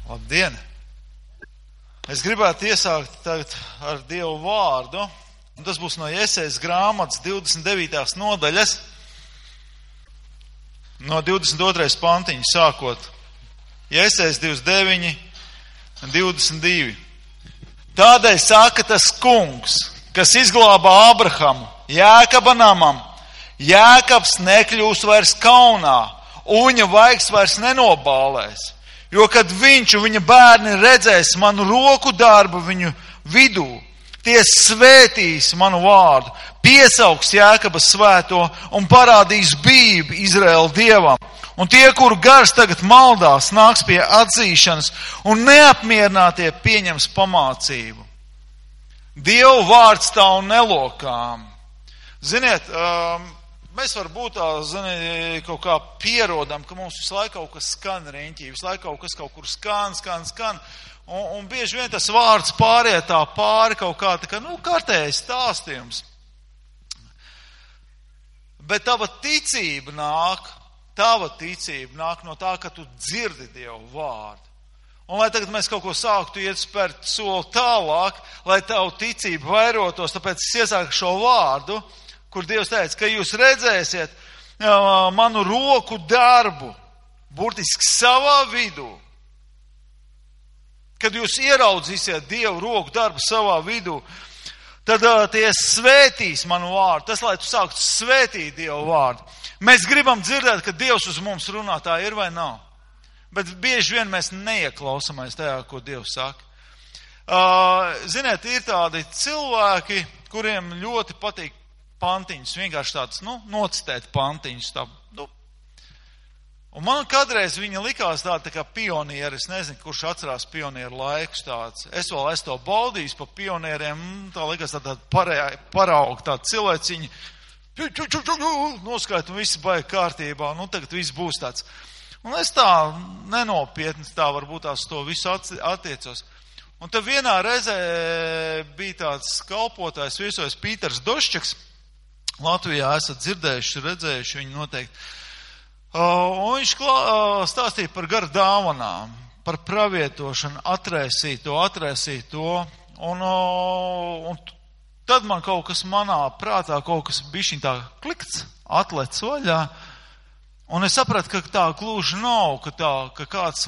Labdien! Es gribētu iesākt tagad ar Dievu vārdu, un tas būs no Jesejas grāmatas 29. nodaļas, no 22. pantiņa sākot. Jesejas 29, 22. Tādēļ saka tas kungs, kas izglāba Ābrahamu, Jēkaba namam. Jēkabs nekļūs vairs kaunā, un viņa vaigs vairs nenobālēs. Jo, kad viņš un viņa bērni redzēs manu roku darbu viņu vidū, tie svētīs manu vārdu, piesaugs Jēkaba svēto un parādīs bijību Izraēla Dievam. Un tie, kuru gars tagad maldās, nāks pie atzīšanas un neapmierinātie pieņems pamācību. Dievu vārds stāv nelokām. Ziniet, mēs varbūt kaut kā pierodam, ka mums visu laiku kaut kas skan riņķī, visu laiku kaut kur skan. Un bieži vien tas vārds pārietā pāri kaut kā tā kā, kārtējais stāstījums. Bet tava ticība nāk no tā, ka tu dzirdi Dievu vārdu. Un lai tagad mēs kaut ko sāktu iet spērt soli tālāk, lai tavu ticību vairotos, tāpēc es iesāku šo vārdu, kur Dievs teica, ka jūs redzēsiet manu roku darbu, burtiski savā vidū. Kad jūs ieraudzīsiet Dievu roku darbu savā vidū, tad tie svētīs manu vārdu. Tas, lai tu sāktu svētīt Dievu vārdu. Mēs gribam dzirdēt, ka Dievs uz mums runā, tā ir vai nav. Bet bieži vien mēs neieklausāmies tajā, ko Dievs saka. Ziniet, ir tādi cilvēki, kuriem ļoti patīk pantiņus, vienkārši tāds, nocitēt pantiņus. Un man kādreiz viņa likās tāda tā kā pionieri, es nezinu, kurš atcerās pionieru laikus tāds. Es to baudījis pa pionieriem, tā likās tāda parauga, tāda cilvēciņa, noskait un viss baigi kārtībā, tagad viss būs tāds. Un es tā nenopietni, tā varbūt tās to visu attiecos. Un tad vienā reizē bija tāds kalpotājs, viesojas Pīters Doščaks. Latvijā esat dzirdējuši, redzējuši viņu noteikti. Un viņš stāstīja par garu dāvanām, par pravietošanu, atraisīt to. Un tad man kaut kas manā prātā, kaut kas bišķiņ tā klikts, atlec vaļā. Un es sapratu, ka tā gluži nav, ka kāds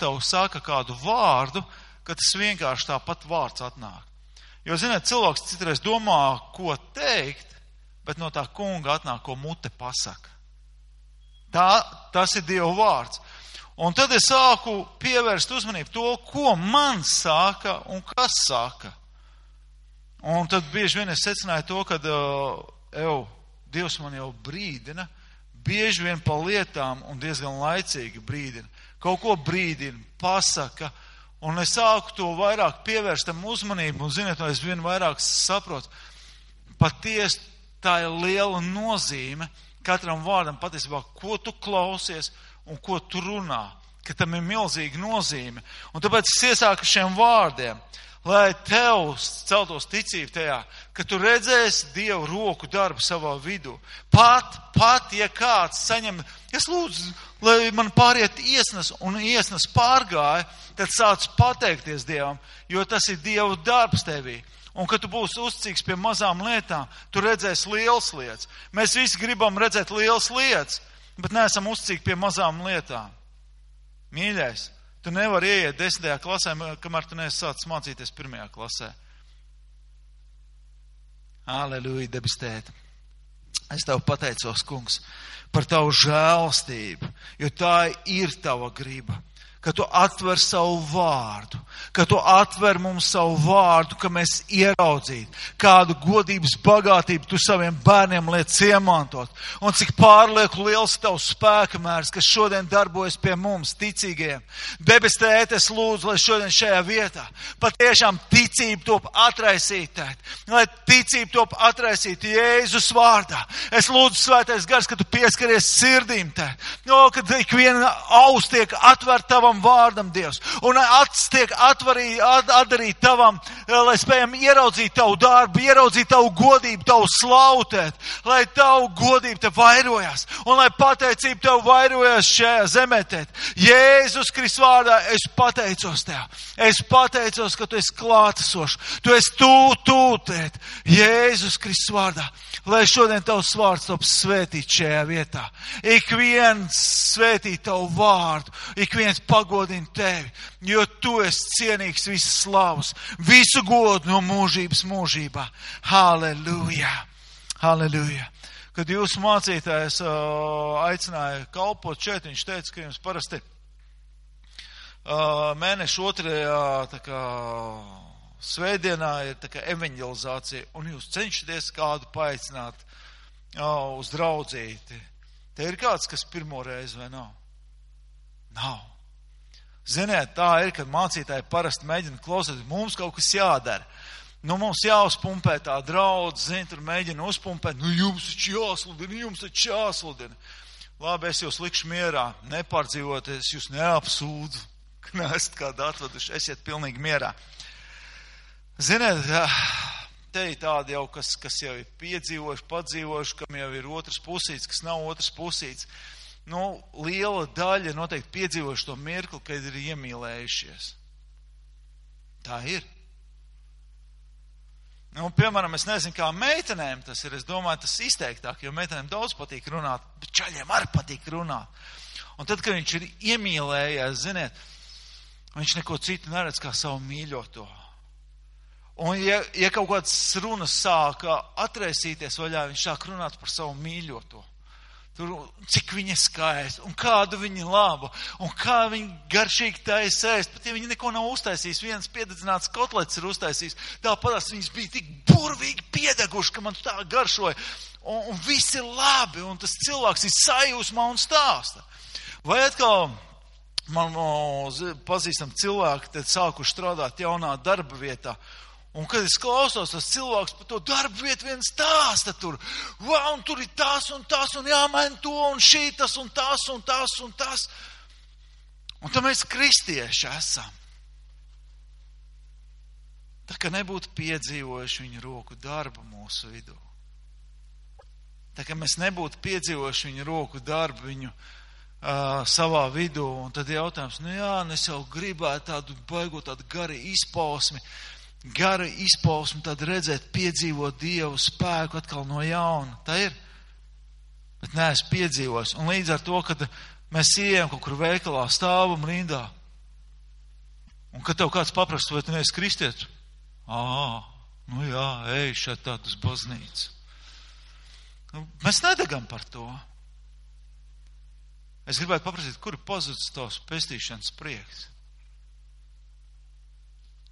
tev saka kādu vārdu, ka tas vienkārši tāpat vārds atnāk. Jo, ziniet, cilvēks citreiz domā, ko teikt, bet no tā kunga atnāk, ko mute pasaka. Tas ir Dieva vārds. Un tad es sāku pievērst uzmanību to, ko man saka un kas saka. Un tad bieži vien es secināju to, ka Dievs man jau brīdina, bieži vien pa lietām un diezgan laicīgi brīdina. Kaut ko brīdina, pasaka, un es sāku to vairāk pievērst tam uzmanību, un ziniet, es vien vairāk saprotu, patiesi tā ir liela nozīme katram vārdam patiesībā, ko tu klausies un ko tu runā, ka tam ir milzīga nozīme. Un tāpēc es iesāku šiem vārdiem, lai tev celtos ticība tajā, ka tu redzēsi Dievu roku darbu savā vidū. Pat, ja kāds saņem, es lūdzu, lai man pāriet iesnas, un iesnas pārgāja, tad sāc pateikties Dievam, jo tas ir Dievu darbs tevī. Un, kad tu būsi uzticīgs pie mazām lietām, tu redzēsi lielas lietas. Mēs visi gribam redzēt lielas lietas, bet neesam uzticīgi pie mazām lietām. Mīļais, tu nevari ieiet 10. klasē, kamēr tu neesi sācis mācīties 1. klasē. Aleluja, debes tēte. Es tev pateicos, kungs, par tavu žēlastību, jo tā ir tava griba. Ka tu atver savu vārdu, ka tu atver mums savu vārdu, ka mēs ieraudzītu, kādu godības bagātību tu saviem bērniem liec iemantot. Un cik pārlieku liels tavs spēka mērs, kas šodien darbojas pie mums, ticīgajiem. Debes tēte, es lūdzu, lai šodien šajā vietā patiešām ticība top atraisīta, lai ticība top atraisīta Jēzus vārdā. Es lūdzu, svētais gars, ka tu pieskaries sirdīm tēt, kad ik viena aus tiek atver tavam tavam vārdam, Dievs, un tiek atdarīt tavam, lai spējam ieraudzīt tavu darbu, ieraudzīt tavu godību, tavu slautēt, lai tavu godību te vairojas, un lai pateicība tev vairojas šajā zemē. Jēzus Kristus vārdā es pateicos tev. Es pateicos, ka tu esi klātesošs. Tu esi tūt, Jēzus Kristus vārdā. Lai šodien tavs vārds top svētīt šajā vietā. Ik viens svētīt tavu vārdu, ik viens pagodina tevi, jo tu esi cienīgs visas slavas, visu godu no mūžības mūžībā. Halleluja! Halleluja! Kad jūsu mācītājs aicināja kalpot šeit, viņš teica, ka jums parasti mēneša otrajā svētdienā ir tā kā evanģelizācija, un jūs cenšaties kādu paaicināt uz draudzīti. Te ir kāds, kas pirmo reizi vai nav? Nav. Ziniet, tā ir, kad mācītāji parasti mēģina klausīt, mums kaut kas jādara. Mums jāuzpumpē tā draudz, tur mēģina uzpumpēt, jums taču jāsludina. Labi, es jūs likšu mierā, nepārdzīvoties, jūs neapsūdzu, ka neesat kādu atveduši, esiet pilnīgi mierā. Ziniet, te ir tādi jau, kas jau ir piedzīvojuši, padzīvojuši, kam jau ir otrs pusīts, kas nav otrs pusīts. Liela daļa noteikti piedzīvojuši to mirkli, kad ir iemīlējušies. Tā ir. Piemēram, es nezinu, kā meitenēm tas ir. Es domāju, tas izteiktāk, jo meitenēm daudz patīk runāt, bet čaļiem arī patīk runāt. Un tad, kad viņš ir iemīlējies, ziniet, viņš neko citu neredz kā savu mīļoto. Un ja kaut kādas runas sāka atraisīties vaļā, viņš sāk runāt par savu mīļoto. Tur, cik viņa skaista, un kādu viņa laba, un kā viņa garšīgi taisa ēst. Pat ja viņa neko nav uztaisījis, viens piededzināts kotlets ir uztaisījis, tāpatās viņas bija tik burvīgi piedeguši, ka man tā garšoja. Un viss ir labi, un tas cilvēks ir sajūsmā un stāsta. Vai atkal man pazīstam cilvēki, tad sākuši strādāt jaunā darba vietā. Un kad es klausos, tas cilvēks par to darbu vietu vien stāsta tur. Un tur ir tas, un jāmaina to, un šītas, un tas, un tas, un tas. Un tad mēs kristieši esam. Tā kā nebūtu piedzīvojuši viņu roku darbu mūsu vidū. Tā kā mēs nebūtu piedzīvojuši viņu roku darbu viņu savā vidū. Un tad jautājums, es jau gribētu tādu baigot, tādu gari izpausmi, tad redzēt, piedzīvot Dievu spēku atkal no jauna. Tā ir. Bet neesmu piedzīvojis. Un līdz ar to, kad mēs ejam kaut kur veikalā, stāvam rindā, un kad tev kāds paprast, vai tu neesi kristietis? Ej šeit tādu uz baznīcu. Mēs nedegam par to. Es gribētu paprasīt, kur ir pazudis tavs pestīšanas prieks?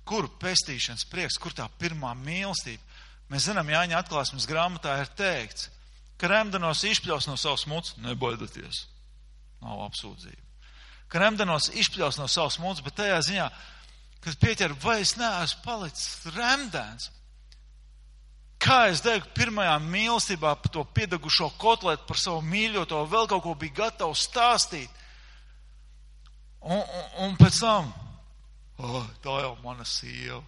Kur pestīšanas prieks, kur tā pirmā mīlestība? Mēs zinām, Jāņa atklāsmes grāmatā ir teikts, ka remdenos izpļaus no savas muts, nebaidoties. Nav apsūdzība. Ka remdenos izpļaus no savas muts, bet tajā ziņā, kad pieķer, vai es neesmu palicis remdens? Kā es degu pirmajā mīlestībā par to piedegušo kotletu, par savu mīļoto, vēl kaut ko bija gatavs stāstīt. Un pēc tam, tā jau mana sieva.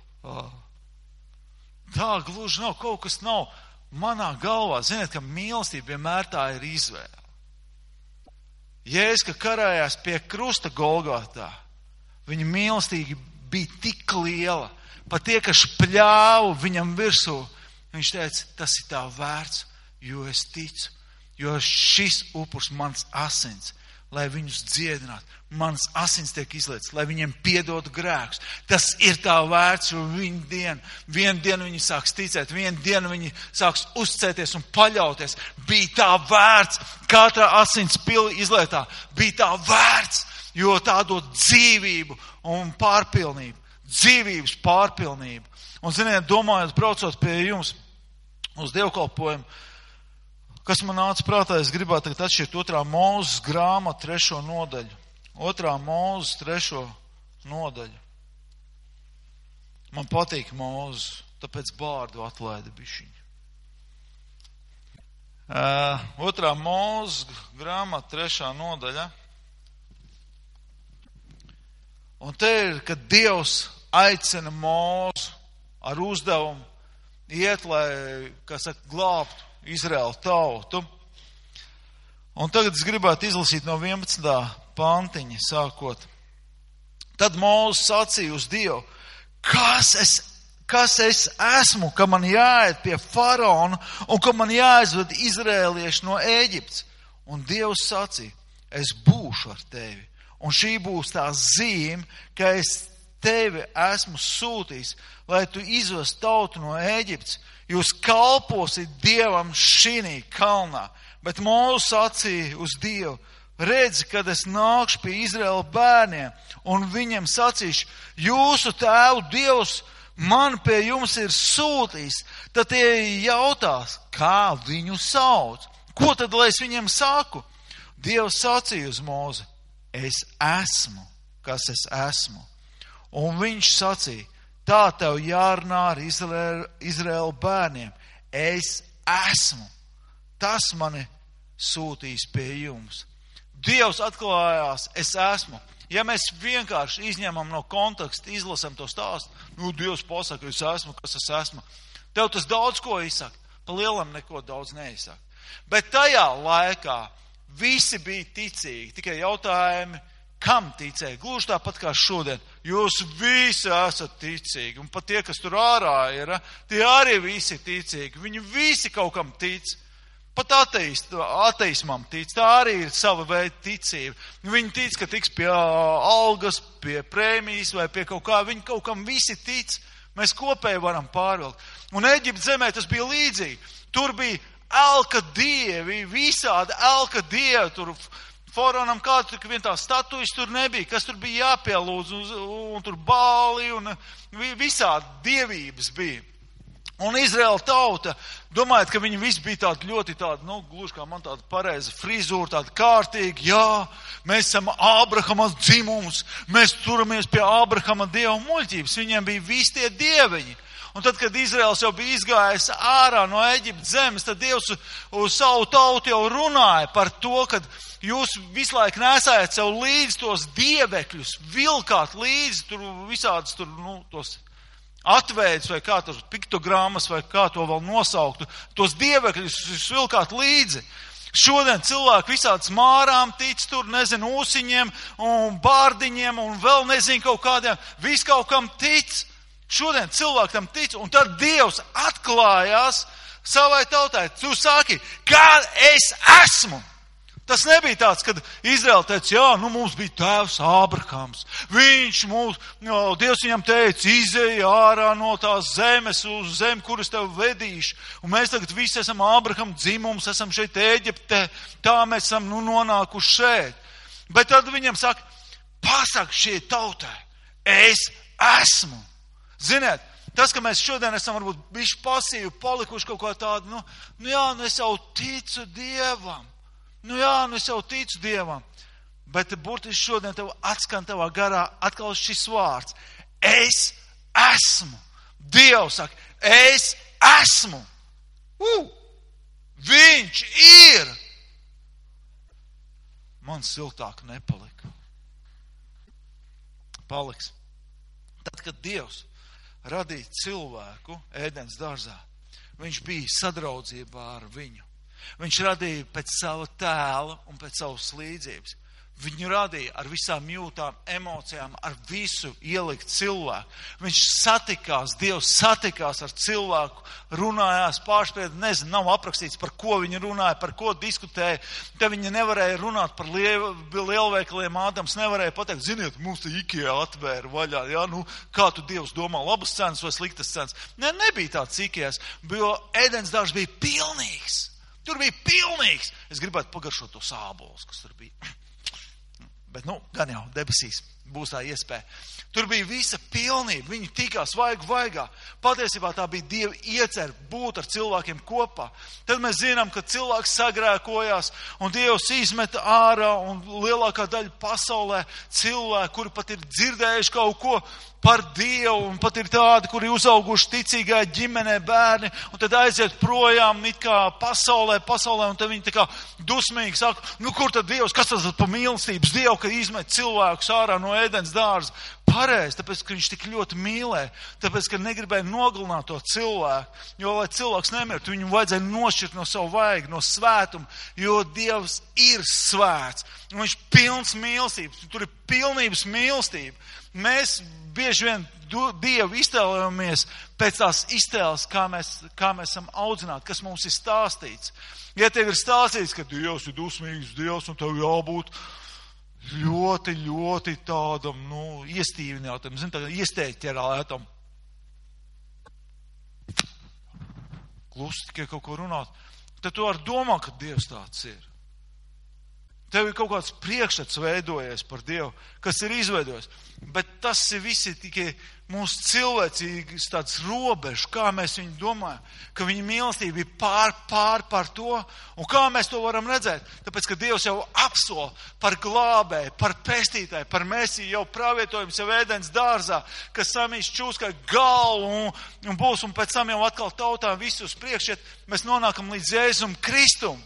Tā gluži nav, kaut kas nav manā galvā. Ziniet, ka mīlestība vienmēr tā ir izvēle. Jēzus, ka karājās pie krusta Golgotā, viņa mīlestība bija tik liela, pat tie, kas pļāva viņam virsū, viņš teica, tas ir tā vērts, jo es ticu, jo šis upurs mans asins, lai viņus dziedinātu. Mans asins tiek izlietas, lai viņiem piedotu grēkus. Tas ir tā vērts, jo vienu dienu viņi sāks ticēt, vienu dienu viņi sāks uzticēties un paļauties. Bija tā vērts, katra asins pili izlietā, bija tā vērts, jo tā dod dzīvību un pārpilnību. Dzīvības pārpilnību. Un, ziniet, domājot, braucot pie jums uz dievkalpojumu, kas man nāca prātā, es gribētu tagad atšķirt 2. Mūzes grāmatu 3. nodaļu. 2. Mūzes 3. nodaļu. Man patīk Mūzes, tāpēc bārdu atlaida bišķiņu. 2. Mūzes grāmata 3. nodaļa. Un te ir, kad Dievs aicina Mūzu ar uzdevumu iet, lai, kā saka, glābtu Izraēlu tautu. Un tagad es gribētu izlasīt no 11. pantiņa sākot. Tad Mūzes sacīja uz Dievu, kas es esmu, ka man jāiet pie faraona un ka man jāizved izrēlieši no Ēģiptes. Un Dievs sacīja, es būšu ar tevi. Un šī būs tā zīme, ka es tevi esmu sūtījis, lai tu izvest tautu no Ēģiptes. Jūs kalposit Dievam šinī kalnā. Bet Mūzes sacīja uz Dievu, redzi, kad es nākšu pie Izraēla bērniem un viņiem sacīšu, jūsu tēvu Dievs man pie jums ir sūtījis, tad tie jautās, kā viņu sauc. Ko tad, lai es viņiem saku? Dievs sacīja uz Mūzi, es esmu, kas es esmu. Un viņš sacīja, tā tev jārunā ar Izraēla bērniem. Es esmu. Tas mani sūtīs pie jums. Dievs atklājās, es esmu. Ja mēs vienkārši izņemam no konteksta, izlasam to stāstu, Dievs pasaka, es esmu, kas es esmu. Tev tas daudz ko izsaka. Pa lielam neko daudz neizsaka. Bet tajā laikā visi bija ticīgi. Tikai jautājumi, kam ticēja? Gluži tāpat kā šodien. Jūs visi esat ticīgi. Un pat tie, kas tur ārā ir, tie arī visi ticīgi. Viņi visi kaut kam tic. Pat ateismam tic. Tā arī ir sava veida ticība. Viņi tic, ka tiks pie algas, pie prēmijas vai pie kaut kā. Viņi kaut kam visi tic. Mēs kopēji varam pārvilkt. Un Eģiptes zemē tas bija līdzīgi. Tur bija elka dievi, visādi elka dievi. Tur faraonam kādu vien tā statujas tur nebija. Kas tur bija jāpielūdz un tur bāli un visādi dievības bija. Un Izraēla tauta, domājot, ka viņi visi bija tādi ļoti tādi, gluži kā man tāda pareiza frizūra, tāda kārtīga, jā, mēs esam Ābrahama dzimums, mēs turamies pie Ābrahama dieva muļķības, viņiem bija visi tie dieviņi. Un tad, kad Izraēls jau bija izgājis ārā no Eģiptes zemes, tad Dievs uz savu tautu jau runāja par to, ka jūs visu laiku nesājat sev līdzi tos dievekļus, vilkāt līdzi tur visādas tur, tos atveidus vai kā tur piktogrammas vai kā to vēl nosauktu, tos dievekļus vilkāt līdzi. Šodien cilvēki visādas mārām tic tur, nezinu, ūsiņiem un bārdiņiem un vēl nezinu kaut kādiem, viss kaut kam tic. Šodien cilvēki tam tic un tad Dievs atklājās savai tautai. Tu saki, kā es esmu. Tas nebija tāds, kad Izraēla teica, jā, mums bija tēvs Ābrahams. Dievs viņam teica, izej ārā no tās zemes uz zemi, kuras tev vedīšu. Un mēs tagad visi esam Ābrahama dzimums, esam šeit Ēģiptē, tā mēs esam nonākuši šeit. Bet tad viņam saka, pasak šie tautai, es esmu. Ziniet, tas, ka mēs šodien esam varbūt bišķi pasīvi, palikuši kaut kā tādu, es jau ticu Dievam. Es jau ticu Dievam, bet burtiski šodien tev atskan tavā garā atkal šis vārds. Es esmu. Dievs saka, es esmu. Viņš ir. Man siltāk nepalika. Paliks. Tad, kad Dievs radīja cilvēku Ēdens dārzā, viņš bija sadraudzībā ar viņu. Viņš radīja pēc sava tēla un pēc savas līdzības. Viņu radīja ar visām jūtām, emocijām, ar visu ielikt cilvēku. Viņš satikās, Dievs satikās ar cilvēku, runājās pārspēd, nav aprakstīts, par ko viņi runāja, par ko diskutēja. Te viņi nevarēja runāt par lielveikaliem, Ādams nevarēja pateikt, ziniet, mums te IKEA atvēra vaļā, kā tu Dievs domā, labas cenas vai sliktas cenas. Nebija tāds IKEAs, jo Ēdens dārzs bija pilnīgs. Tur bija pilnīgs. Es gribētu pagaršot to sābolus, kas tur bija. Bet, gan jau debesīs būs tā iespēja. Tur bija visa pilnība. Viņi tikās vaigā. Patiesībā tā bija Dieva iecer būt ar cilvēkiem kopā. Tad mēs zinām, ka cilvēks sagrēkojās un Dievs izmeta ārā un lielākā daļa pasaulē cilvēki, kuri pat ir dzirdējuši kaut ko par Dievu un pat ir tādi, kuri uzauguši ticīgā ģimenē bērni un tad aiziet projām it kā pasaulē un tad viņi tā kā dusmīgi saka, kur tad Dievs, kas tas pa mīlestības Dievu, ka izmet cilvēkus ārā no no ēdens dārza. Pareizi, tāpēc, ka viņš tik ļoti mīlēja, tāpēc, ka negribēja nogalināt to cilvēku, jo, lai cilvēks nemirtu, viņu vajadzēja nošķirt no savu vaigu, no svētuma, jo Dievs ir svēts, un viņš pilns mīlestības, tur ir pilnības mīlestība. Mēs bieži vien Dievu iztēlojamies pēc tās iztēles, kā mēs esam audzināti, kas mums ir stāstīts. Ja tev ir stāstīts, ka Dievs ir dusmīgs Dievs, un tev jābūt ļoti, ļoti tādam, iestīvinātam, iesteķerētam. Klusi tikai kaut ko runāt. Tad tu vari domāt, ka Dievs tāds ir. Tev ir kaut kāds priekšstats veidojies par Dievu, kas ir izveidojis. Bet tas ir visi tikai mūsu cilvēcīgas tāds robežs, kā mēs viņu domājam, ka viņa mīlestība ir pār to. Un kā mēs to varam redzēt? Tāpēc, ka Dievs jau apsola par glābēju, par pestītāju, par Mesiju jau pravietojums jau ēdens dārzā, kas samīs čūskai galvu un būs, un pēc tam jau atkal tautām visus priekšiet, mēs nonākam līdz Jēzum Kristum.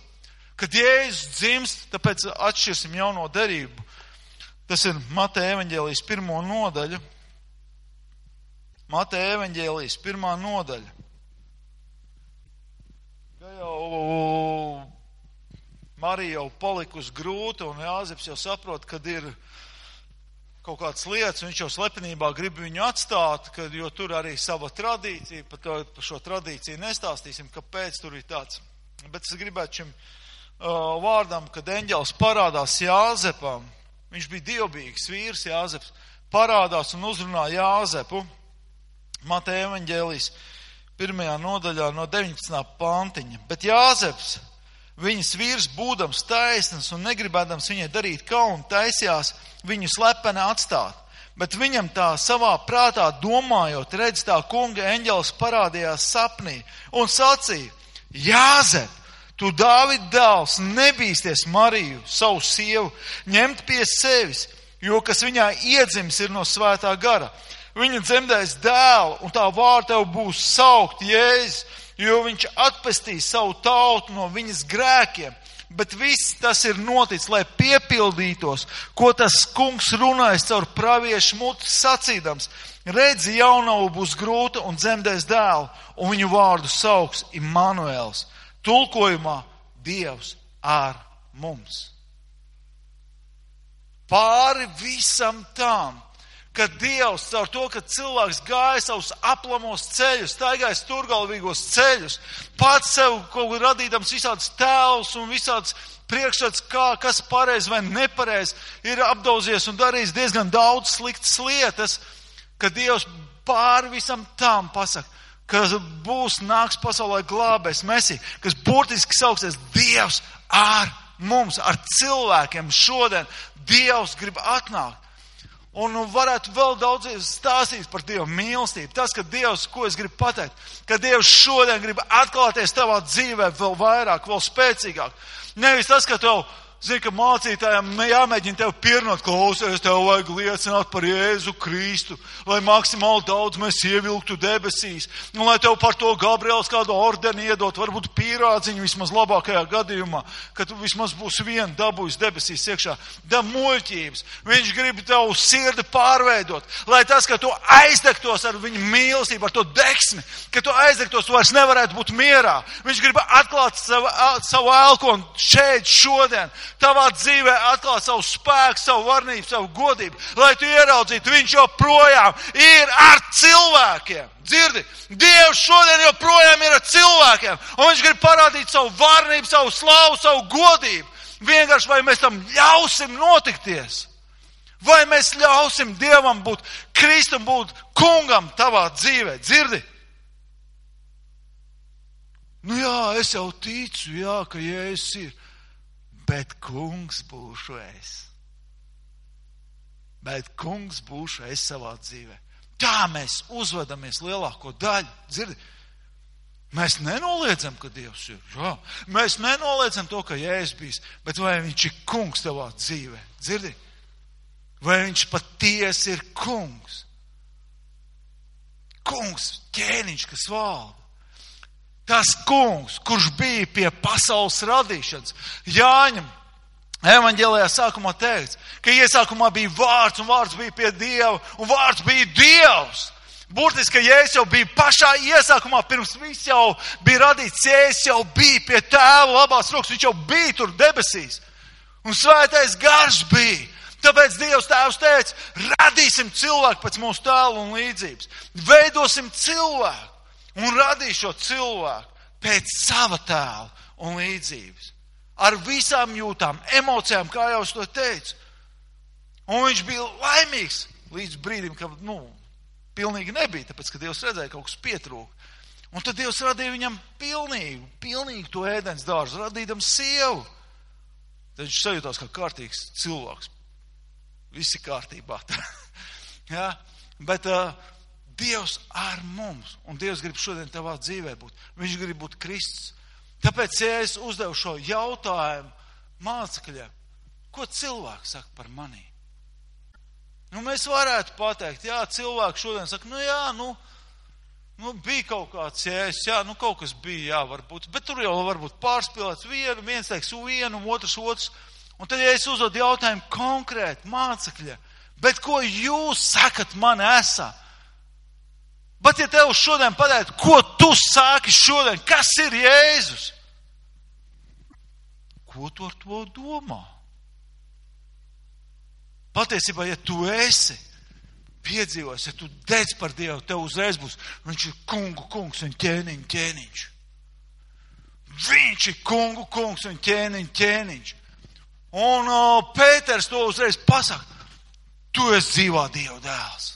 Kad Jēzus dzimst, tāpēc atšķirsim jauno derību. Tas ir Mateja evaņģēlijas 1. nodaļa. Mateja evaņģēlijas 1. nodaļa. Ja jau Marija jau palikusi grūta un Jāzeps jau saprot, kad ir kaut kādas lietas, viņš jau slepenībā grib viņu atstāt, jo tur arī sava tradīcija, par šo tradīciju nestāstīsim, kāpēc tur ir tāds. Bet es gribētu šim vārdam, kad eņģelis parādās Jāzepam, viņš bija dievbijīgs vīrs Jāzeps, parādās un uzrunā Jāzepu, Mateja evaņģēlijas 1. nodaļā no 19. pantiņa. Bet Jāzeps, viņas vīrs būdams taisns un negribēdams viņai darīt kaunu, taisījās viņu slepeni atstāt. Bet viņam tā savā prātā domājot, redz tā kunga eņģelis parādījās sapnī un sacīja: Jāzep, tu Dāvida dēls, nebīsties Mariju, savu sievu, ņemt pie sevis, jo kas viņā iedzims ir no svētā gara. Viņa dzemdēs dēlu, un tā vārda tev būs saukt Jēzus, jo viņš atpestīs savu tautu no viņas grēkiem. Bet viss tas ir noticis, lai piepildītos, ko tas kungs runājas caur praviešu muti sacīdams. Redzi, jaunava būs grūta un dzemdēs dēlu, un viņu vārdu sauks Immanuēls. Tulkojumā Dievs ar mums. Pāri visam tam, ka Dievs caur to, ka cilvēks gāja savus aplamos ceļus, staigāja stūrgalvīgos ceļus, pats sev kaut kur radīdams visādas tēlus un visādas priekšstats, kas pareizi vai nepareizi, ir apdauzies un darījis diezgan daudz sliktas lietas, ka Dievs pāri visam tam pasaka, ka nāks pasaulē glābēs Mesija, kas burtiski sauksies Dievs ar mums, ar cilvēkiem šodien. Dievs grib atnākt. Un varētu vēl daudz stāstīt par Dieva mīlestību. Tas, ka Dievs, ko es gribu pateikt, ka Dievs šodien grib atklāties tavā dzīvē vēl vairāk, vēl spēcīgāk. Nevis tas, ka tev, ka mācītājiem jāmēģina tev pierunāt, klausies, tev vajag liecināt par Jēzu Kristu, lai maksimāli daudz mēs ievilktu debesīs, un lai tev par to Gabriels kādu ordeni iedot, varbūt pīrādziņu vismaz labākajā gadījumā, ka tu vismaz būs viena dabūjis debesīs iekšā. Da muļķības. Viņš grib tev sirdi pārveidot, lai tas, ka tu aizdegtos ar viņu mīlestību, ar to deksmi, ka tu aizdegtos, tu vairs nevarētu būt mierā. Viņš grib atklāt savu elkonu šeit, šodien, tavā dzīvē atklāt savu spēku, savu varnību, savu godību, lai tu ieraudzītu, viņš joprojām ir ar cilvēkiem. Dzirdi, Dievs šodien joprojām ir ar cilvēkiem, un viņš grib parādīt savu varnību, savu slavu, savu godību. Vienkārši vai mēs tam ļausim notikties, vai mēs ļausim Dievam būt, Kristum būt kungam tavā dzīvē. Dzirdi? Jā, es jau ticu, ka Jēzus ir. Bet kungs būšu es. Bet kungs būšu es savā dzīvē. Tā mēs uzvedamies lielāko daļu. Dzirdi? Mēs nenoliedzam, ka Dievs ir. Jā. Mēs nenoliedzam to, ka Jēzus bijis. Bet vai viņš ir kungs tavā dzīvē? Dzirdi? Vai viņš patiesi ir kungs? Kungs, ķēniņš, kas valda. Tas kungs, kurš bija pie pasaules radīšanas. Jāņem Evaņģēlijā sākumā teikts, ka iesākumā bija vārds, un vārds bija pie Dieva, un vārds bija Dievs. Burtiski, ka Jēzus jau bija pašā iesākumā, pirms viss jau bija radīts, Jēzus jau bija pie Tēva labās rokas, viņš jau bija tur debesīs. Un svētais gars bija. Tāpēc Dievs Tēvs teica, radīsim cilvēku pēc mūsu tēla un līdzības. Veidosim cilvēku un radīšu šo cilvēku pēc sava tēla un līdzības. Ar visām jūtām, emocijām, kā jau es to teicu. Un viņš bija laimīgs līdz brīdim, ka, pilnīgi nebija, tāpēc, ka Dievs redzēja, kaut kas pietrūka. Un tad Dievs radīja viņam pilnīgi to ēdens dārzu, radīdam sievu. Tad viņš sajūtās kā kārtīgs cilvēks. Visi kārtībā. Ja? Bet Dievs ar mums, un Dievs grib šodien tavā dzīvē būt. Viņš grib būt Kristus. Tāpēc, ja es uzdevu šo jautājumu mācekļiem, ko cilvēks saka par mani? Mēs varētu pateikt, jā, cilvēki šodien saka, bija kaut kāds jēzus, jā, kaut kas bija, jā, varbūt, bet tur jau varbūt pārspīlēts viens teiks vienu, otrs. Un tad, ja es uzdodu jautājumu konkrēti mācekļiem, bet ko jūs sakat man esā? Bet ja tev šodien pateikt, ko tu sāki šodien, kas ir Jēzus? Ko tu ar to domā? Patiesībā, ja tu esi piedzīvojis, ja tu dedz par Dievu, tev uzreiz būs, viņš ir kungs un ķēniņš. Viņš ir kungs un ķēniņš. Un Pēters to uzreiz pasaka, tu esi dzīvā Dieva dēls.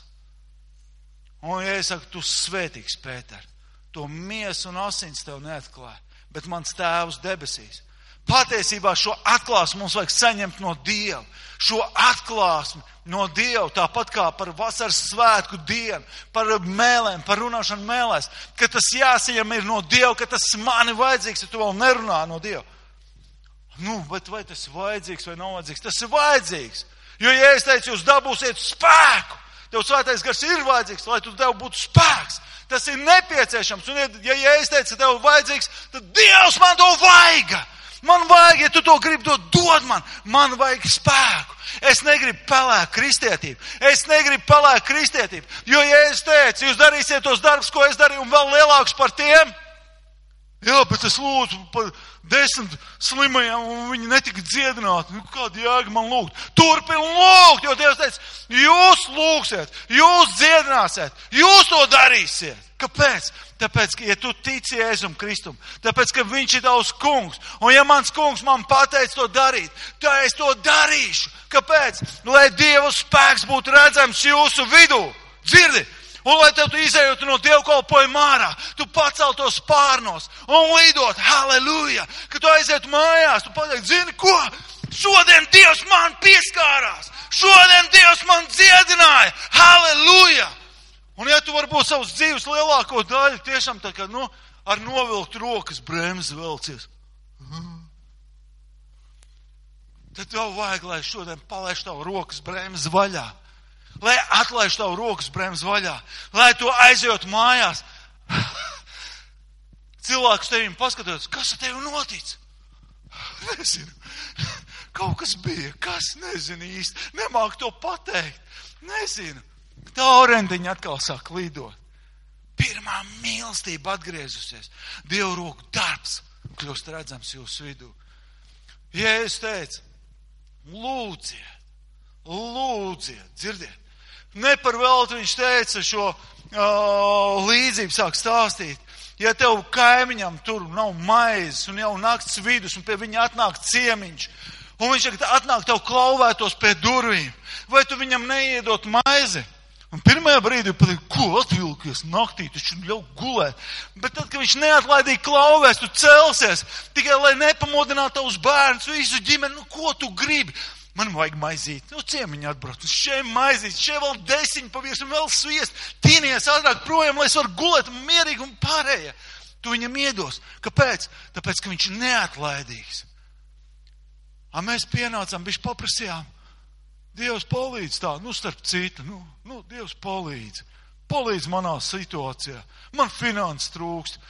Un ja es saku, tu svētīgs, Pēter, to miesu un asins tev neatklāja, bet mans tēvs debesīs. Patiesībā šo atklāsmi mums vajag saņemt no Dieva. Šo atklāsmi no Dieva, tāpat kā par vasaras svētku dienu, par mēlēm, par runāšanu mēlēs, ka tas jāsaņem ir no Dieva, ka tas man ir vajadzīgs, ja tu vēl nerunā no Dieva. Bet vai tas ir vajadzīgs vai nav vajadzīgs? Tas ir vajadzīgs. Jo, ja es teicu, jūs dabūsiet spēku, tev svētais gars ir vajadzīgs, lai tu tev būtu spēks. Tas ir nepieciešams. Un ja es teicu, ka tev ir vajadzīgs, tad Dievs man to vajag. Man vajag, ja tu to gribi, to dod man. Man vajag spēku. Es negribu pelēt kristietību. Jo, ja es teicu, jūs darīsiet tos darbus, ko es darīju, un vēl lielākus par tiem, jā, bet es lūdzu par 10 slimajiem, un viņi netika dziedināti. Kāda jēga man lūgt? Turpin lūgt, jo Dievs teica, jūs lūgsiet, jūs dziedināsiet, jūs to darīsiet. Kāpēc? Tāpēc, ka, ja tu tici Jēzum Kristum, tāpēc, ka viņš ir tavs kungs, un ja mans kungs man pateic to darīt, tad es to darīšu. Kāpēc? Lai Dieva spēks būtu redzams jūsu vidū. Dzirdi? Un lai tev tu izējot no dievkalpojuma ārā, tu paceltos spārnos un lidot, halleluja, ka tu aiziet mājās, tu pateikt, zini ko? Šodien Dievs man pieskārās, šodien Dievs man dziedināja, halleluja. Un ja tu varbūt savus dzīves lielāko daļu tiešām tā kā, ar novilkt rokas bremzi velcies, tad tev vajag, lai šodien palaiž tavu rokas bremzi vaļā. Lai atlaiž tavu rokas bremzi vaļā. Lai tu aizjot mājās. Cilvēks tevim paskatās, kas ar tevi notic? Nezinu. Kaut kas bija, kas nezinu īsti. Nemāk to pateikt. Nezinu. Tā orendiņa atkal sāk lidot. Pirmā mīlestība atgriezusies. Dievu roku darbs kļūst redzams jūsu vidū. Jēzus teica, lūdziet, dzirdiet. Ne par velti viņš teica šo līdzību sāk stāstīt. Ja tev kaimiņam tur nav maizes un jau nakts vidus un pie viņa atnāk ciemiņš, un viņš atnāk tev klauvētos pie durvīm, vai tu viņam neiedot maizi? Un pirmajā brīdī pateikt, ko atvilkies naktī, taču ļauj gulēt. Bet tad, kad viņš neatlaidīgi klauvēs, tu celsies, tikai lai nepamodinātu tavus bērnus, visu ģimeni, ko tu gribi? Man vajag maizīt, ciemiņi atbrauc, šeit maizīt, šeit vēl 10 pavirs un vēl sviest, tīnies ātrāk projām, lai es varu gulēt mierīgi un pārējie. Tu viņam iedos. Kāpēc? Tāpēc, ka viņš ir neatlaidīgs. Mēs pienācām, bišķi paprasījām, Dievs palīdz tā, starp citu, Dievs palīdz manā situācijā, man finanses trūkst,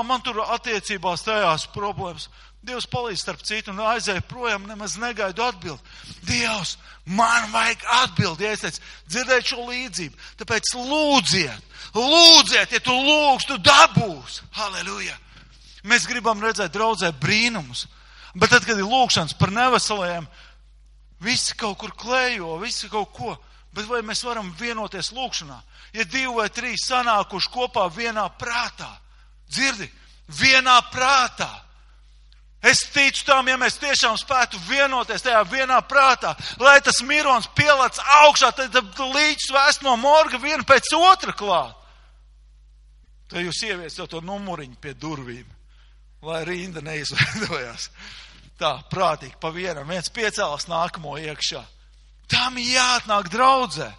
man tur attiecībās tajās problēmas. Dievs palīdz starp citu un aizēju projām, nemaz negaidu atbildi. Dievs, man vajag atbildi. Ja es teicu, dzirdēt šo līdzību, tāpēc lūdziet, ja tu lūgs, tu dabūs. Halleluja! Mēs gribam redzēt draudzē brīnumus, bet tad, kad ir lūgšanas par neveselajiem, visi kaut kur klējo, visi kaut ko, bet vai mēs varam vienoties lūgšanā? Ja 2 vai 3 sanākuši kopā vienā prātā, dzirdi, vienā prātā. Es ticu tam, ja mēs tiešām spētu vienoties tajā vienā prātā, lai tas mirons pielāc augšā, tad līdz vēst no morga vienu pēc otra klāt. Tad jūs ieviesiet to numuriņu pie durvīm, lai rinda neizveidojās. Tā, prātīgi, pa vienam, viens piecēlās nākamo iekšā. Tam jāatnāk draudzē.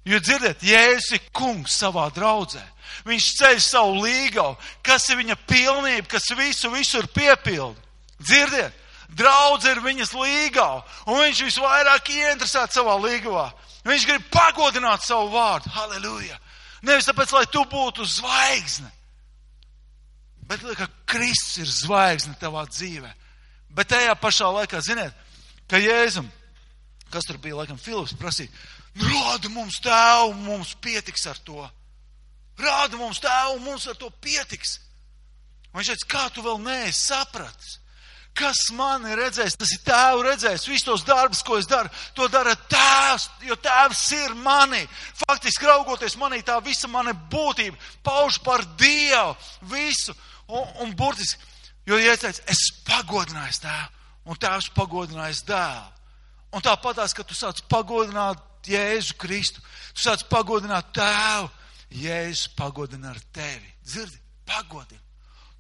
Jo dzirdiet, Jēzus ir kungs savā draudzē. Viņš ceļ savu līgavu, kas ir viņa pilnība, kas visur piepilda. Dzirdiet, draudze ir viņas līgava, un viņš visvairāk ieinteresēts savā līgavā. Viņš grib pagodināt savu vārdu. Halleluja! Nevis tāpēc, lai tu būtu zvaigzne, bet ka Kristus ir zvaigzne tavā dzīvē. Bet tajā pašā laikā, ziniet, ka Jēzum, kas tur bija, laikam, Filips prasīja, rāda mums tēvu, mums pietiks ar to. Rāda mums tēvu, mums ar to pietiks. Un viņš teica, kā tu vēl neesi sapratis? Kas man ir redzējis, tas ir tēvu redzējis. Visus tos darbus, ko es daru, to dara tēvs, jo tēvs ir manī. Faktiski raugoties manī, tā visa mana būtība pauž par Dievu visu. Un burtiski, jo ja es teicu, es pagodināju tēvu, un tēvs pagodinājis dēlu. Un tāpatās, ka tu sāc pagodināt Jēzu Kristu, tu sāc pagodināt tēvu, Jēzus pagodina ar tevi. Dzirdi, pagodina.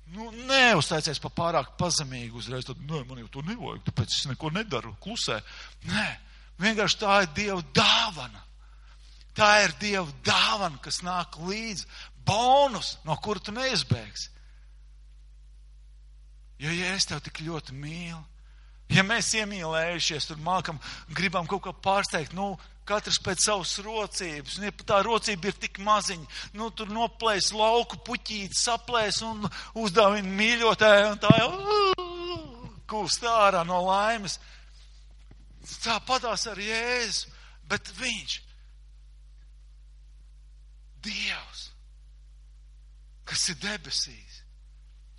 Neuztaicies pa pārāk pazemīgi uzreiz, tad, man jau to nevajag, tāpēc es neko nedaru, klusē. Nē, vienkārši tā ir Dieva dāvana. Tā ir Dieva dāvana, kas nāk līdz bonus, no kura tu neizbēgsi. Jo, ja es tev tik ļoti mīlu, ja mēs iemīlējušies, tur gribam kaut ko pārsteigt, katrs pēc savas rocības, un ja tā rocība ir tik maziņa, tur noplēs lauku puķīti, saplēs un uzdāvina mīļotāju, un tā jau kūst ārā no laimes. Tāpatās ar Jēzu, bet viņš, Dievs, kas ir debesīs,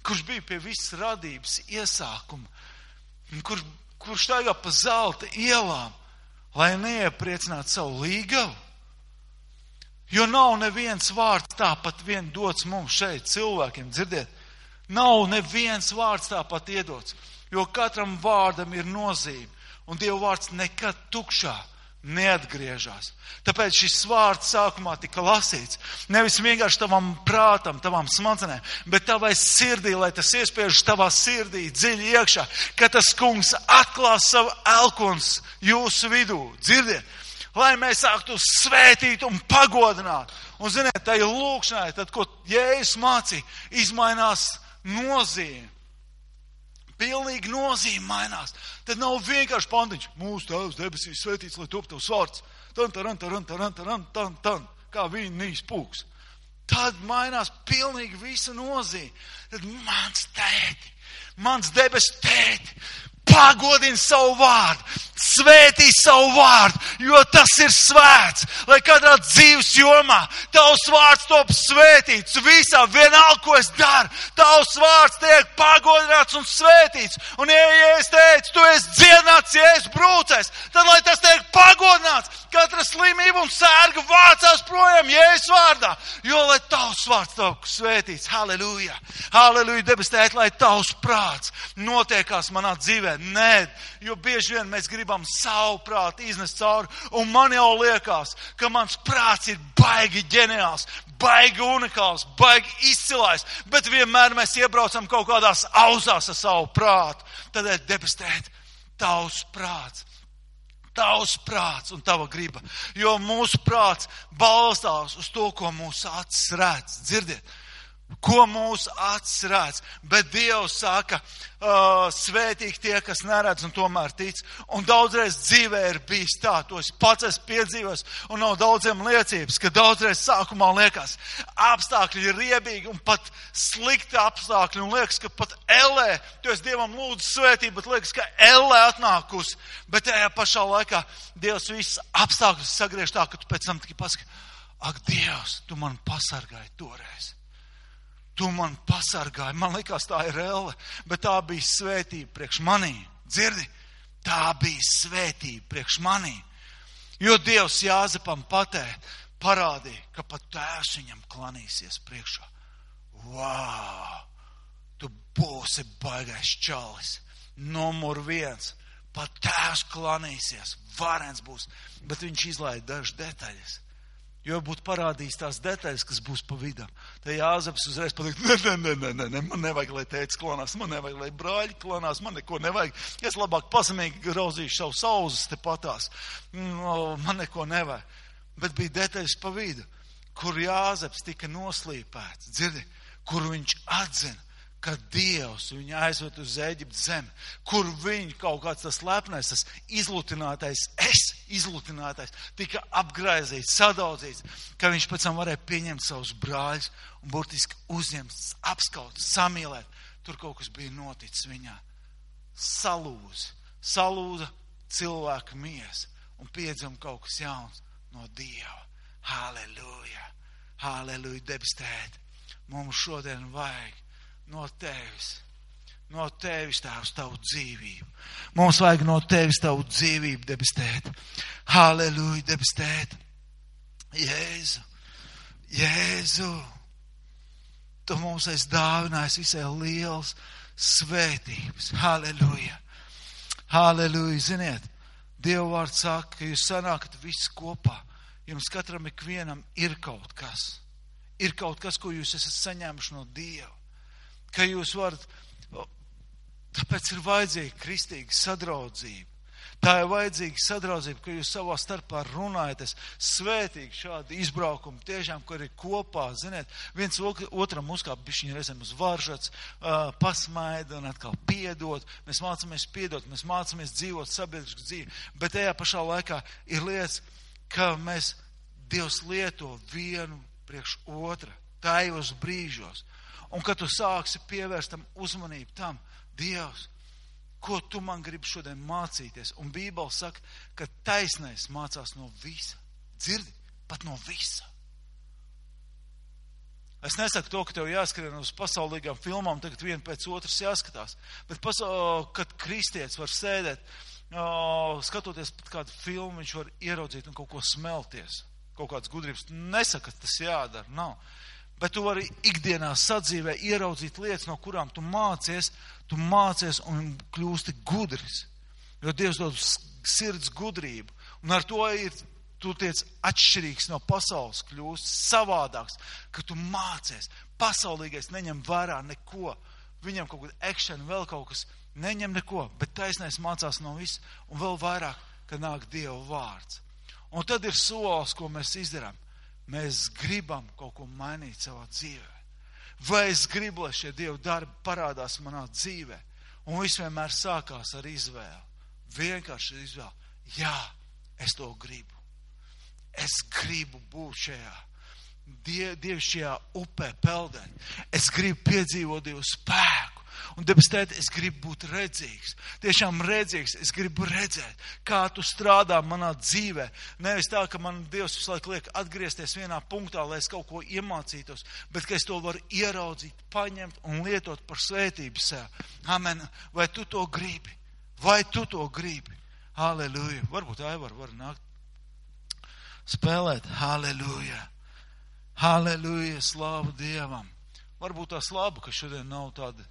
kurš bija pie visas radības iesākuma, kurš staigā pa zelta ielām, lai neiepriecinātu savu līgavu. Jo nav neviens vārds tāpat vien dots mums šeit cilvēkiem, dzirdiet. Nav neviens vārds tāpat iedots, jo katram vārdam ir nozīme. Un Dieva vārds nekad tukšā neatgriežās. Tāpēc šis vārds sākumā tika lasīts. Nevis vienkārši tavam prātam, tavam smadzenēm, bet tavai sirdī, lai tas iespiežas tavā sirdī dziļi iekšā, ka tas kungs atklās savu elkons jūsu vidū. Dzirdiet, lai mēs sāktu svētīt un pagodināt. Un ziniet, tai lūkšanai, tad, ko Jēzus mācīja, izmainās nozīme. Pilnīgi nozīme mainās. Tad nav vienkārši pantiņš. Mūsu Tēvs debesīs svētīts, lai top tavs vārds. Tan, kā vīnīs pūks. Tad mainās pilnīgi visa nozīme. Tad mans debes tēti, pagodina savu vārdu, svētī savu vārdu, jo tas ir svēts, lai katrā dzīves jomā tavs vārds top svētīts, visā vienalga, ko es daru, tavs vārds tiek pagodināts un svētīts. Un ja es teicu, tu esi dziedināts, ja es brūcēs, tad lai tas tiek pagodināts, katra slimība un sērga vācās projām Jēzus vārdā, jo lai tavs vārds top svētīts. Halleluja! Halleluja, debes tēt, lai tavs prāts notiekās manā dzīvē. Nē, jo bieži vien mēs gribam savu prātu iznest cauri, un man jau liekas, ka mans prāts ir baigi ģeniāls, baigi unikāls, baigi izcilājs, bet vienmēr mēs iebraucam kaut kādās auzās ar savu prātu. Tādēļ, debes tēt, tavs prāts un tava griba, jo mūsu prāts balstās uz to, ko mūsu acis redz. Dzirdiet, Ko mūsu acis redz, bet Dievs saka, svētīgi tie, kas neredz un tomēr tic. Un daudzreiz dzīvē ir bijis tā, to es pats esmu piedzīvojis, un nav daudziem liecības, ka daudzreiz sākumā liekas, apstākļi ir riebīgi un pat slikti apstākļi, un liekas, ka pat ellē, tu esi Dievam lūdzu svētību, bet liekas, ka ellē atnākusi, bet tajā pašā laikā Dievs visus apstākļus sagriež tā, ka tu pēc tam tikai pasaki, ak, Dievs, tu man pasargāji toreiz. Tu man pasargāji, man likās tā ir elle, bet tā bija svētība priekš manī. Dzirdi? Tā bija svētība priekš manī. Jo Dievs Jāzepam parādīja, ka pat tēvs viņam klanīsies priekšā. Vau! Tu būsi baigais čalis. Numur 1. Pat tēvs klanīsies. Varens būs. Bet viņš izlaida dažas detaļas. Jo būtu parādījis tās detaļas, kas būs pa vidam. Tā Jāzeps uzreiz pateikt, ne, man nevajag, lai tētis klonās, man nevajag, lai brāļi klonās, man neko nevajag. Es labāk pasamīgi grauzīšu savu sauzes te patās. Man neko nevajag. Bet bija detaļas pa vidu, kur Jāzeps tika noslīpēts, dzirdi, kur viņš atzina, ka Dievs viņu aizved uz Ēģiptes zemi, kur viņa kaut kāds tas lepnais, tas izlutinātais, tika apgraizīts, sadaudzīts, ka viņš pēc tam varēja pieņemt savus brāļus un burtiski uzņemt, apskaut, samīlēt. Tur kaut kas bija noticis viņā. Salūza cilvēka miesa un piedzima kaut kas jauns no Dieva. Halleluja! Halleluja, debes Tēti! Mums šodien vajag no Tevis, Tēvs, tavu dzīvību. Mums vajag no Tevis tavu dzīvību, debes Tēti. Halleluja, debes Tēti. Jēzu, Tu mums esi dāvinājis visai liels svētības. Halleluja. Halleluja, ziniet, Dieva vārds saka, ka jūs sanākat visi kopā. Jums katram ikvienam ir kaut kas. Ir kaut kas, ko jūs esat saņēmuši no Dieva. Ka jūs varat, tāpēc ir vajadzīga kristīga sadraudzība. Tā ir vajadzīga sadraudzība, ka jūs savā starpā runājaties svētīgi šādi izbraukumi, tiešām, kur ir kopā, ziniet, viens otram uzkāp bišķiņi reizēm uz varžats, pasmaida un atkal piedot. Mēs mācamies piedot, mēs mācamies dzīvot sabiedrisku dzīvi, bet tajā pašā laikā ir lietas, ka Dievs lieto vienu priekš otra, tajos brīžos. Un kad tu sāksi pievērst tam uzmanību tam, Dievs, ko tu man gribi šodien mācīties? Un Bībele saka, ka taisnais mācās no visa. Dzirdi? Pat no visa. Es nesaku to, ka tev jāskrien uz pasaulīgām filmām, tagad viena pēc otras jāskatās. Bet kad kristietis var sēdēt, skatoties pat kādu filmu, viņš var ieraudzīt un kaut ko smelties. Kaut kāds gudrības. Nesaka, ka tas jādara, nav. Bet tu vari ikdienā sadzīvē ieraudzīt lietas, no kurām tu mācies un kļūsti gudrs. Jo Dievs dod sirds gudrību. Un ar to tu tiec atšķirīgs no pasaules, kļūst savādāks, ka tu mācies. Pasaulīgais neņem vērā neko. Viņam kaut kāda action, vēl kaut kas neņem neko, bet taisnais mācās no viss un vēl vairāk, kad nāk Dieva vārds. Un tad ir solis, ko mēs izdarām. Mēs gribam kaut ko mainīt savā dzīvē. Vai es gribu, lai šie Dieva darbi parādās manā dzīvē? Un viss vienmēr sākās ar izvēli. Vienkārši izvēli. Jā, es to gribu. Es gribu būt šajā dievišķajā upē peldēt. Es gribu piedzīvot Dievu spēku. Un, debes Tēti, es gribu būt redzīgs. Tiešām redzīgs. Es gribu redzēt, kā tu strādā manā dzīvē. Nevis tā, ka man Dievs visu laiku liek atgriezties vienā punktā, lai es kaut ko iemācītos, bet ka es to varu ieraudzīt, paņemt un lietot par svētību sev. Amen. Vai tu to gribi? Vai tu to gribi? Halleluja. Varbūt Aivar var nākt spēlēt. Halleluja. Halleluja. Slāvu Dievam. Varbūt tās labu, ka šodien nav tāda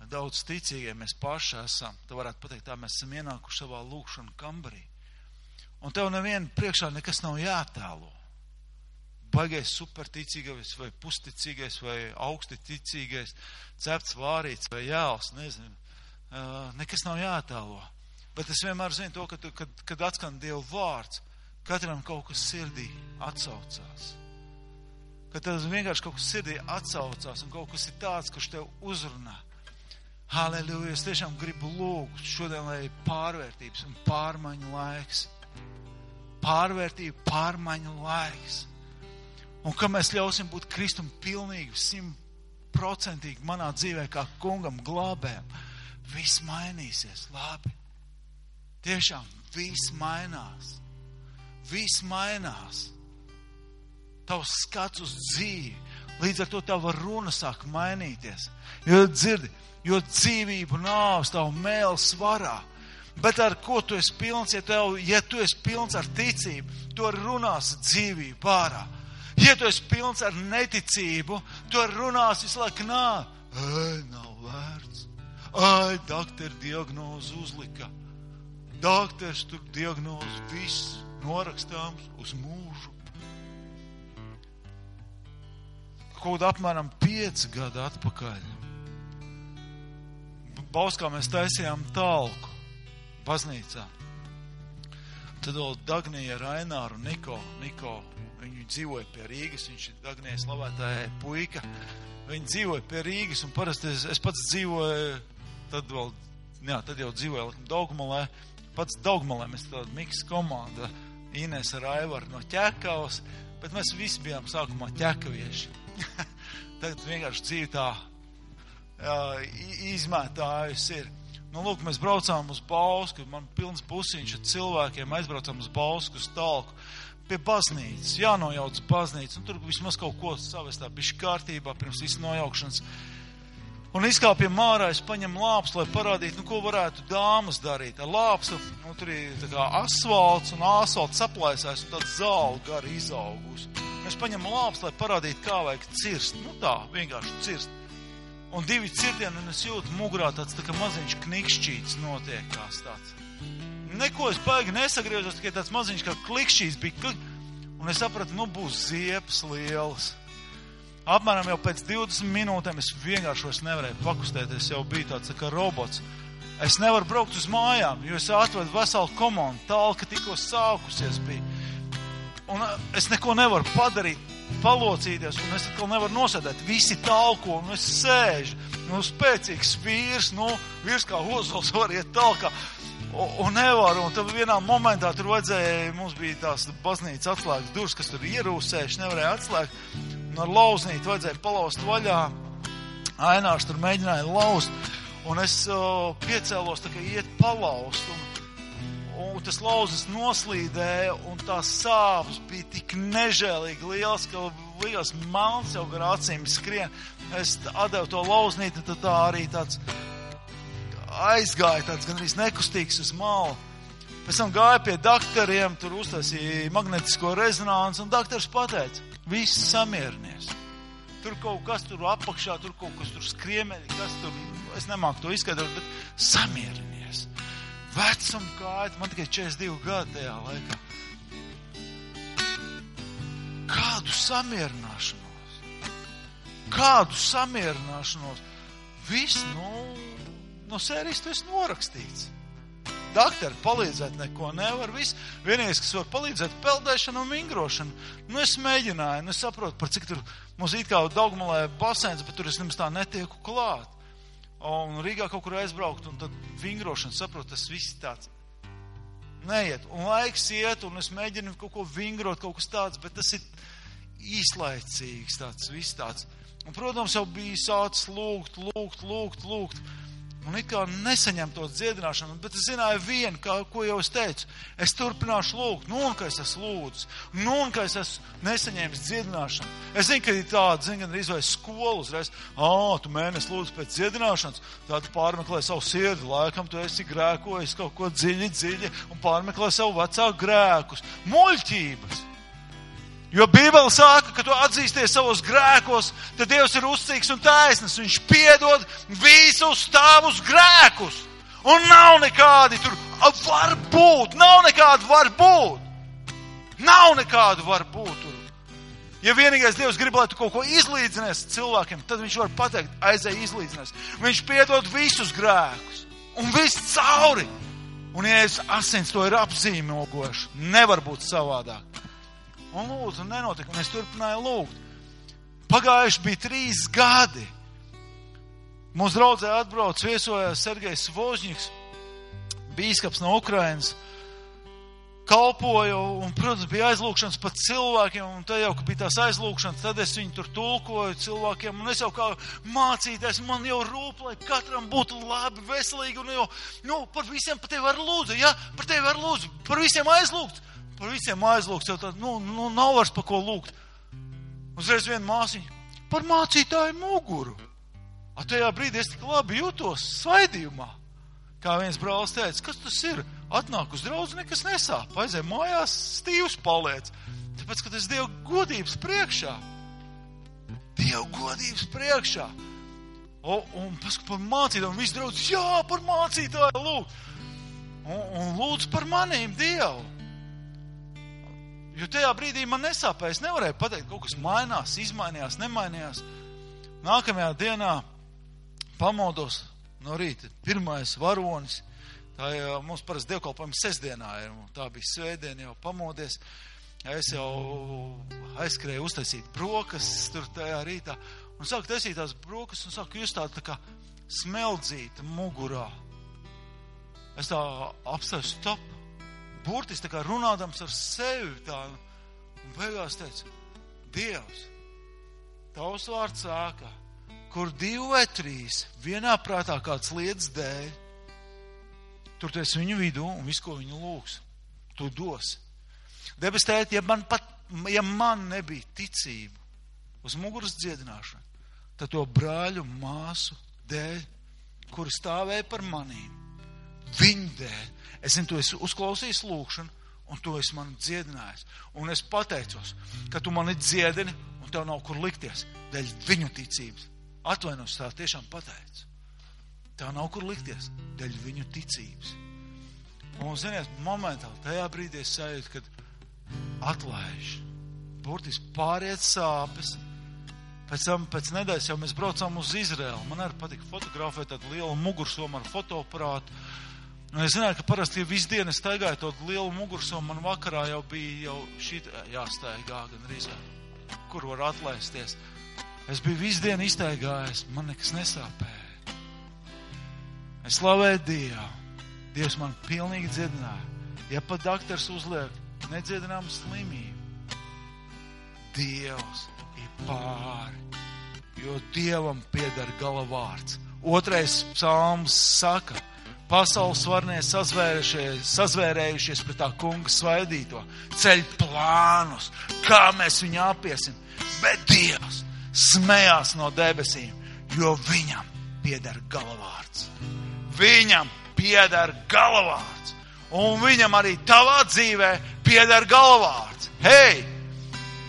daudz ticīgie mēs paši esam. Tu varētu pateikt, tā mēs esam ienākuši savā lūkšanu kambarī. Un tev nevienu priekšā nekas nav jātēlo. Baigais superticīgais vai pusticīgais vai augsti ticīgais, cepts vārīts vai jāls, nezinu. Nekas nav jātēlo. Bet es vienmēr zinu to, kad atskan Dieva vārds, katram kaut kas sirdī atsaucās. ka tev vienkārši kaut kas sirdī atsaucās un kaut kas ir tāds, kurš tev uzrunā. Halleluja, es tiešām gribu lūgt šodien, lai pārvērtības un pārmaiņu laiks. Pārvērtība, pārmaiņu laiks. Un ka mēs ļausim būt Kristum pilnīgi, 100% manā dzīvē kā kungam glābējam, viss mainīsies labi. Tiešām viss mainās. Viss mainās. Tavs skats uz dzīvi. Līdz ar to tava runa sāk mainīties. Jo dzirdi, jo dzīvību nāvs tavu mēli svarā. Bet ar ko tu esi pilns? Ja tu esi pilns ar ticību, tu runāsi dzīvību ārā. Ja tu esi pilns ar neticību, tu runāsi visu laiku nav vērts. Doktori diagnozu uzlika. Doktors tur diagnozu viss norakstāms uz mūžu. Kaut apmēram 5 gadu atpakaļ. Bauskā mēs taisījām talku baznīcā. Tad vēl Dagnija, Raināru un Niko, viņi dzīvoja pie Rīgas, viņš ir Dagnija slavētāja puika. Viņi dzīvoja pie Rīgas un parasti es pats dzīvoju, tad jau dzīvoju Daugmalē. Pats Daugmalē mēs tāda miks komanda, Ines ar Aivaru no Ķekavas, bet mēs visi bijām sākumā ķekavieši. Tagad vienkārši dzīve tā izmētājusi ir. Lūk, mēs braucām uz Bausku, man pilns busiņš ar cilvēkiem, aizbraucām uz Bausku, uz talku, pie baznīcas, jānojauc baznīcas, un tur vismaz kaut ko savestā bišķi kārtībā pirms visu nojaukšanas. Un izkāpjam ārā, es paņem lāpstu, lai parādītu, ko varētu dāmas darīt. Ar lāpstu, tur ir tā kā asfalts, un asfalts saplaisās, un tāda zāle gari izaugus. Mēs paņem lāpstu, lai parādītu, kā vajag cirst. Tā, vienkārši cirst. Un 2 cirtieni, un es jūtu mugurā tāds tā kā maziņš knikšķīts notiekās tāds. Neko es baigi nesagriezos, tikai tāds maziņš kā klikšķīts bija. Un es sapratu, būs ziepes lielas. Apmēram jau pēc 20 minūtēm es vienkārši vairs nevarēju pakustēties, jau bija tāds tā kā robots. Es nevaru braukt uz mājām, jo es atvedu veselu komandu, talka tikko sākusies bija. Un es neko nevaru padarīt, palocīties, un es atkal nevaru nosēdēt. Visi talko, un es sēžu, spēcīgs vīrs, vīrs kā ozols var iet talkā, un nevaru. Un tad vienā momentā tur vajadzēja, mums bija tās baznīcas atslēgas durvis, kas tur ierūsējuši, nevarēja atslēgt. Un ar lauznīti vajadzēja palaust vaļā. Ainārs tur mēģināja laust, un es piecēlos tā kā iet palaust, un tas lauzes noslīdēja, un tās sāpes bija tik nežēlīgi liels, ka liekas malns jau gar acīm skrien. Es atdevu to lauznīti, tad tā arī tāds aizgāja, tāds gandrīz nekustīgs uz malu. Pēc tam gāja pie doktoriem, tur uztaisīja magnetisko rezonanci, un doktors pateica, viss samierinies. Tur kaut kas tur apakšā, tur kaut kas tur skriemeļi, kas tur, es nemāku to izskaidrot, bet samierinies. Vecuma kāja, man tikai 42 gadi tajā laikā. Kādu samierināšanos? Viss, no sērijas tu esi norakstīts. Doktori palīdzēt neko nevar, viss. Vienīgais, kas var palīdzēt, peldēšana un vingrošana. Es mēģināju, es saprotu, par cik tur mums it kā Daugmalē basēns, bet tur es nemaz tā netieku klāt. Un Rīgā kaut kur aizbraukt, un tad vingrošana, saprotu, tas viss tāds neiet. Un laiks iet, un es mēģinu kaut ko vingrot, kaut kas tāds, bet tas ir īslaicīgs tāds, viss tāds. Un, protams, jau bija sācis lūgt. Un it kā nesaņem to dziedināšanu, bet es zināju vienu, ko jau es teicu. Es turpināšu lūgt, un ka es esmu lūdzis, un ka es esmu nesaņēmis dziedināšanu. Es zinu, ka ir tāda, gan arī skola uzreiz. Tu mēnesi lūdz pēc dziedināšanas, tad pārmeklē savu sirdi, laikam tu esi grēkojis kaut ko dziļi, un pārmeklē savu vecāku grēkus. Muļķības! Jo Bībele saka, ka tu atzīsties savos grēkos, tad Dievs ir uzticīgs un taisnīgs. Viņš piedod visus tavus grēkus. Un nav nekādi tur var būt. Nav nekādu var būt tur. Ja vienīgais Dievs grib, lai tu kaut ko izlīdzinies cilvēkiem, tad viņš var pateikt, aizēj izlīdzinies. Viņš piedod visus grēkus. Un viss cauri. Un ja asins to ir apzīmogoši, nevar būt savādāk. Un lūdzu, nenotika, un es turpināju lūgt. Pagājuši bija 3 gadi. Mums draudzē atbrauc, viesojās Sergejs Vožņiks, bīskaps no Ukrainas, kalpoja, un, protams, bija aizlūkšanas pat cilvēkiem, un te jau, ka bija tās aizlūkšanas, tad es viņu tur tulkoju cilvēkiem, un es jau kā mācītājs, man jau rūp, lai katram būtu labi, veselīgi, un jau, par visiem par tevi var lūdzu, ja, par tevi var lūdzu, par visiem aizlūgts, jau tā, nav vairs par ko lūgt. Uzreiz viena māsiņa, par mācītāju muguru. A tajā brīdī es tik labi jūtos svaidījumā. Kā viens brālis teica, kas tas ir? Atnāk uz draudzi, nekas nesāp. Aizēj mājās, stīvs paliec. Tāpēc, ka tas Dieva godības priekšā. Dieva godības priekšā. Un paskat par mācītāju, un viss draudz, jā, par mācītāju lūgt. Un lūdz par manīm Dievu. Jo tajā brīdī man nesāpēja. Es nevarēju pateikt, kaut kas mainās, izmainījās, nemainījās. Nākamajā dienā pamodos no rīta. Pirmais varonis. Tā jau mums parasti dievkalpojums sestdienā ir. Tā bija svētdiena, jau pamodies. Es jau aizskrēju uztaisīt brokastis tur tajā rītā. Un sāku taisīt tās brokastis un sāku just tā kā smeldzīta mugurā. Es tā apstāju stop. Burtis tā kā runādams ar sevi tā. Un beigās teicu, Dievs, tavs vārds sāka, kur 2 vai 3 vienā prātā kāds lietas dēļ, tur tu esi viņu vidū un visu, ko viņu lūgs, tu dosi. Debes tēti, ja man nebija ticība uz muguras dziedināšanu, tad to brāļu māsu dēļ, kuri stāvēja par manīm, viņu dēļ, es zinu, tu esi uzklausījis lūgšanu, un tu esi mani dziedinājis. Un es pateicos, ka tu mani dziedini, un tev nav kur likties, dēļ viņu ticības. Atvainos, tā tiešām pateicu. Tev nav kur likties, dēļ viņu ticības. Un, ziniet, momentāli, tajā brīdī es sajūtu, kad atlaiž. Burtiski pāriet sāpes. Pēc nedēļas jau mēs braucām uz Izraēlu. Man arī patika fotografēt tādu lielu mugursomu ar fotoaparātu. Un es zināju, ka parasti visu dienu es staigāju to lielu mugursomu, man vakarā jau bija jāstaigā gan arī, kur var atlaisties. Es biju visu dienu iztaigājis, man nekas nesāpēja. Es slavēju Dievu. Dievs man pilnīgi dziedināja. Ja pat daktars uzliek nedziedināmu slimību, Dievs ir pāri, jo Dievam pieder gala vārds. 2. psalms saka, pasaules varnie sazvērējušies pret tā kunga svaidīto, ceļ plānus, kā mēs viņu apiesim, bet Dievs smējās no debesīm, jo viņam pieder galavārds. Viņam pieder galavārds. Un viņam arī tavā dzīvē pieder galavārds. Hei!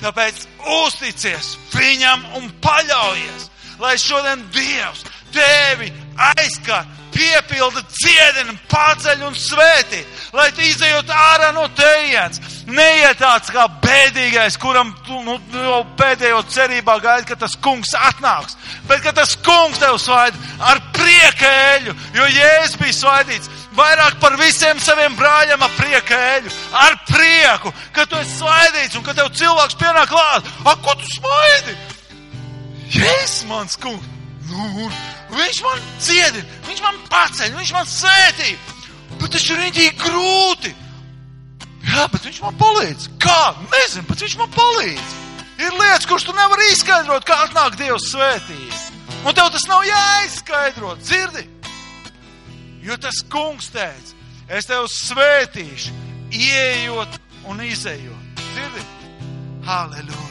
Tāpēc uzticies viņam un paļaujies, lai šodien Dievs tevi aizskar, piepilda, dziedina, paceļ un svētī, lai tu izejot ārā no tejienes. Neiet tāds kā bēdīgais, kuram tu jau pēdējo cerībā gaidi, ka tas kungs atnāks, bet ka tas kungs tev svaida ar prieka eļu, jo Jēzus bija svaidīts vairāk par visiem saviem brāļiem ar prieka eļu, ar prieku, ka tu esi svaidīts un ka tev cilvēks pienāk klāt. Ko tu svaidi? Jēzus mans kungs. Viņš man dziedina, viņš man paceļ, viņš man svētī. Bet tas ir rītīgi grūti. Jā, bet viņš man palīdz. Kā? Nezinu, bet viņš man palīdz. Ir lietas, kuras tu nevari izskaidrot, kā atnāk Dievs svētība. Un tev tas nav jāizskaidrot, dzirdi? Jo tas kungs teica, es tev svētīšu, ieejot un izejot. Dzirdi? Halleluja.